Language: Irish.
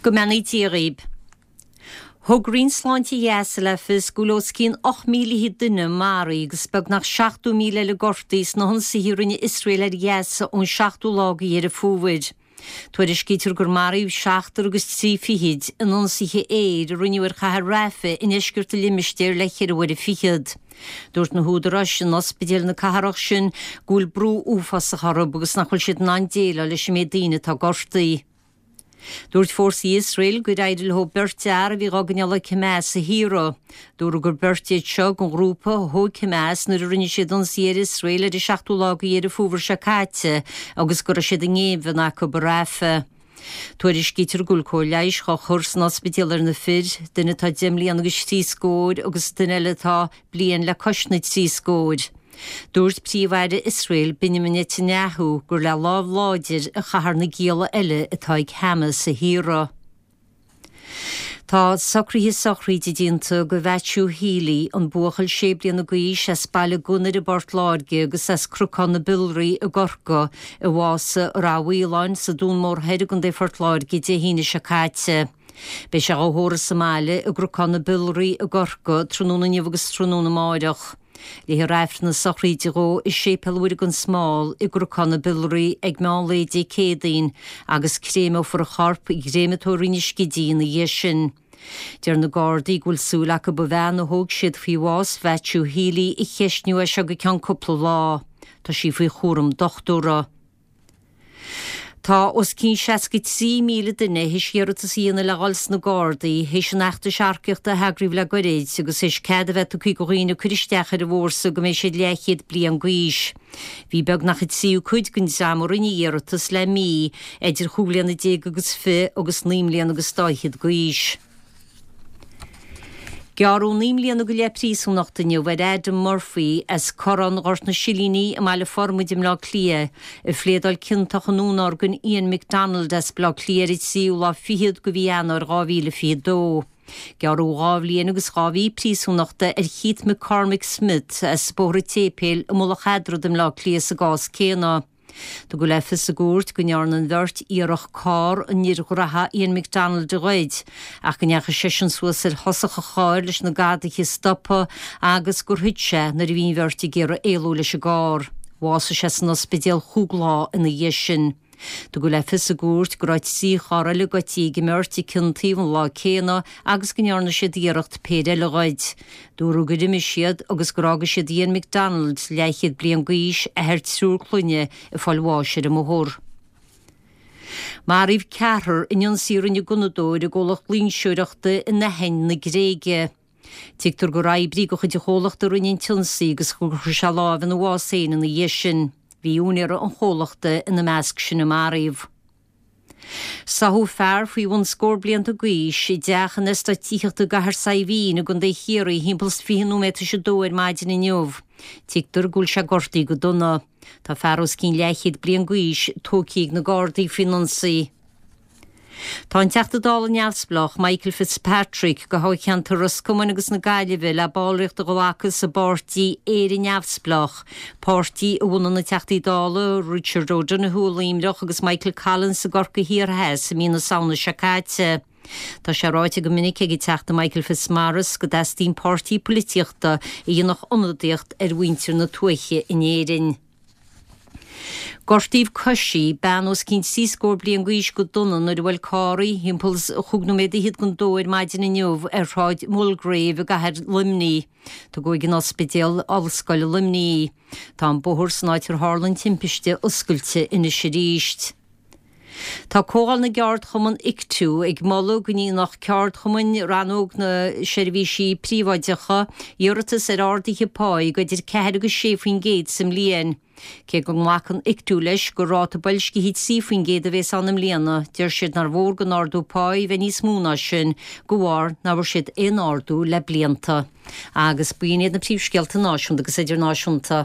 Go mbeannaí Dia dhaoib. Thug Roinn Sláinte Ghaza le fios go bhfuil os cionn 8,000 duine maraithe agus beagnach 70,000 eile gortaithe sna hionsaithe a rinne Iosrael ar Ghaza ón seachtú lá de Dheireadh Fómhair. Tuairiscítear gur maraíodh seachtar agus trí fichid in ionsaithe aeir a rinneadh ar chathair Rafah i ndeisceart an limistéir le ceithre huaire fichead. Dúirt na húdaráis in ospidéil na cathrach sin go bhfuil brú uafásach orthu agus nach bhfuil siad in ann déileáil leis an méid daoine atá gortaithe. Dúirt fórsaí Iosrael gur éirigh leo beirt fhear a bhí dhá gcoinneáil ag Hamas a shaoradh. Dúradh gur beirt iad seo den ghrúpa a thóg Hamas nuair a rinne siad ionsaí ar Iosrael ar an seachtú lá de Dheireadh Fómhair seo caite agus go raibh siad i ngéibheann acu i Rafah. Tuairiscítear go bhfuil cóir leighis dhá chur san ospidéal ar na fir, duine atá deich mbliana agus trí scór agus duine eile atá bliain le cois na dtrí scór. Dúirt Príomh-Aire Iosrael, Benjamin Netanyahu, gur le lámh láidir a chaithfear na gialla eile atá ag Hamas a shaoradh. Tá socruithe sochraide déanta do Mhaitiú Healy, an buachaill sé bliana d'aois as Baile Gunnair i bPort Láirge agus as Cnocán na Biolraí i gCorcaigh, a bhásaigh i Rath Mhaoláin sa Dún Mór Thoir i gContae Phort Láirge Dé hAoine seo caite. Beidh sé dhá thórramh sa mbaile i gCnocán na Biolraí i gCorcaigh tráthnóna inniu agus tráthnóna amáireach. Léifear Aifreann na sochraide dhó i Séipéal Mhuire gan Smál i gCnocán na Biolraí ag meán lae Dé Céadaoin agus créimeofar a chorp i gcréamatóir Rinn an Scidígh ina dhiaidh sin. Deir na Gardaí go bhfuil súil acu an bhean a thóg siad faoi bhás Mhaitiú Healy a cheistniú as seo go ceann cúpla lá. Tá sí faoi chúram dochtúra. Tá os cionn 63,000 duine théis iarratas a dhéanamh le dhul sna Gardaí théis an fheachtais earcaíochta a heagraíodh le goirid agus théis cead a bheith tugtha do dhaoine cur isteach ar an bhfórsa go mbeidh siad leathchéad bliain d'aois. Bhí beagnach an tríú cuid den dream a rinne iarratas le mí idir chúig bhliana déag agus fiche agus naoi mbliana agus dá fhichead d'aois. Gearradh 9 mbliana go leith príosúnachta inniu ar Adam Murphy as Corrán Ghort na Silíní i mBaile Formaid i mBleá Cliath, a phléadáil ciontach i ndúnorgain Ian McDonald as Bleá Cliath ar an tríú lá fichead de mhí Eanáir 2022. Gearradh dhá bhliain agus dhá mhí príosúnachta ar Keith McCormick Smith as Bóthar an tSéipéil i Mullach Eadrad i mBleá Cliath sa gcás céanna. Tugadh le fios sa gcúirt go ndearna an bheirt iarracht carr an fhir ghraithe Ian McDonald a ghoid ach go ndeachaigh seisean suas ar thosach an chairr leis na gadaithe a stopadh agus gur thit sé nuair a bhí an bheirt ag iarraidh éalú leis an gcarr. Bhásaigh sé san ospidéal chúig lá ina dhiaidh sin. Tugadh le fios sa gcúirt go raibh 3 charr eile goidte ag an mbeirt ag cionn taobh an lá céanna agus go ndearna siad iarracht péire eile a ghoid. Dúradh gur imigh siad agus gur fhága siad Ian McDonald, leathchéad bliain d'aois, athair triúr clainne, ag fáil bháis ar an mbóthar. Maraíodh ceathrar in ionsaí a rinne gunnadóir i gcomhlacht loingseoireachta in Aithin na Gréige. Tuigtear gur oibrí de chuid an chomhlachta a rinne an t-ionsaí agus gur chuir sé lámh ina bhás féin ina dhiaidh sin. Bhí úinéir an chomhlachta ina measc sin a maraíodh. Sáthadh fear faoi bhun scór blianta d'aois i dteach in eastát tithíochta i gCathair Saidhbhín i gContae Chiarraí thimpeall is 20 nóiméad tar éis a dó ar maidin inniu. Tuigtear go bhfuil sé gortaithe go dona. Tá fear os cionn leathchéad bliain d'aois tógtha ag na Gardaí faoin ionsaí. Tá an Teachta Dála neamhspleách Michael Fitzpatrick de thoghcheantar Ros Comáin agus na Gaillimhe le ballraíocht a ghlacadh sa bpáirtí Éire Neamhspleách, páirtí a bhunaigh na Teachtaí Dála Richard O'Donoghue i Luimneach agus Michael Collins i gCorcaigh Thiar Theas i mí na Samhna seo caite. Tá sé ráite go minic ag an Teachta Michael Fitzmaurice go dteastaíonn páirtí poilitíochta a dhéanfadh ionadaíocht ar mhuintir na tuaithe in Éirinn. Gortaíodh coisí, bean os cionn trí scór bliain d'aois go dona nuair a bhuail carr í thimpeall is chúig nóiméad fhichead don dó ar maidin inniu ar Shráid Mulgrave i gcathair Luimnigh. Tugadh ag an Ospidéal Ollscoile Luimnigh í. Tá an bóthar san áit ar tharla an timpiste oscailte anois arís. Tá Comhdháil na gCeardchumann Ictu ag moladh go ndéanfadh ceardchumainn rannóg na seirbhísí príobháideacha iarratas ar arduithe páí de idir 4 agus 6% sa mbliain. Cé go nglacann Ictu leis gur ráta boilscithe 3% a bhéas ann i mbliana, deir siad nár mhór don ardú páí bheith níos mó ná sin de bharr nach bhfuair siad aon ardú le blianta. Agus b'in iad na príomhscéalta náisiúnta agus idirnáisiúnta.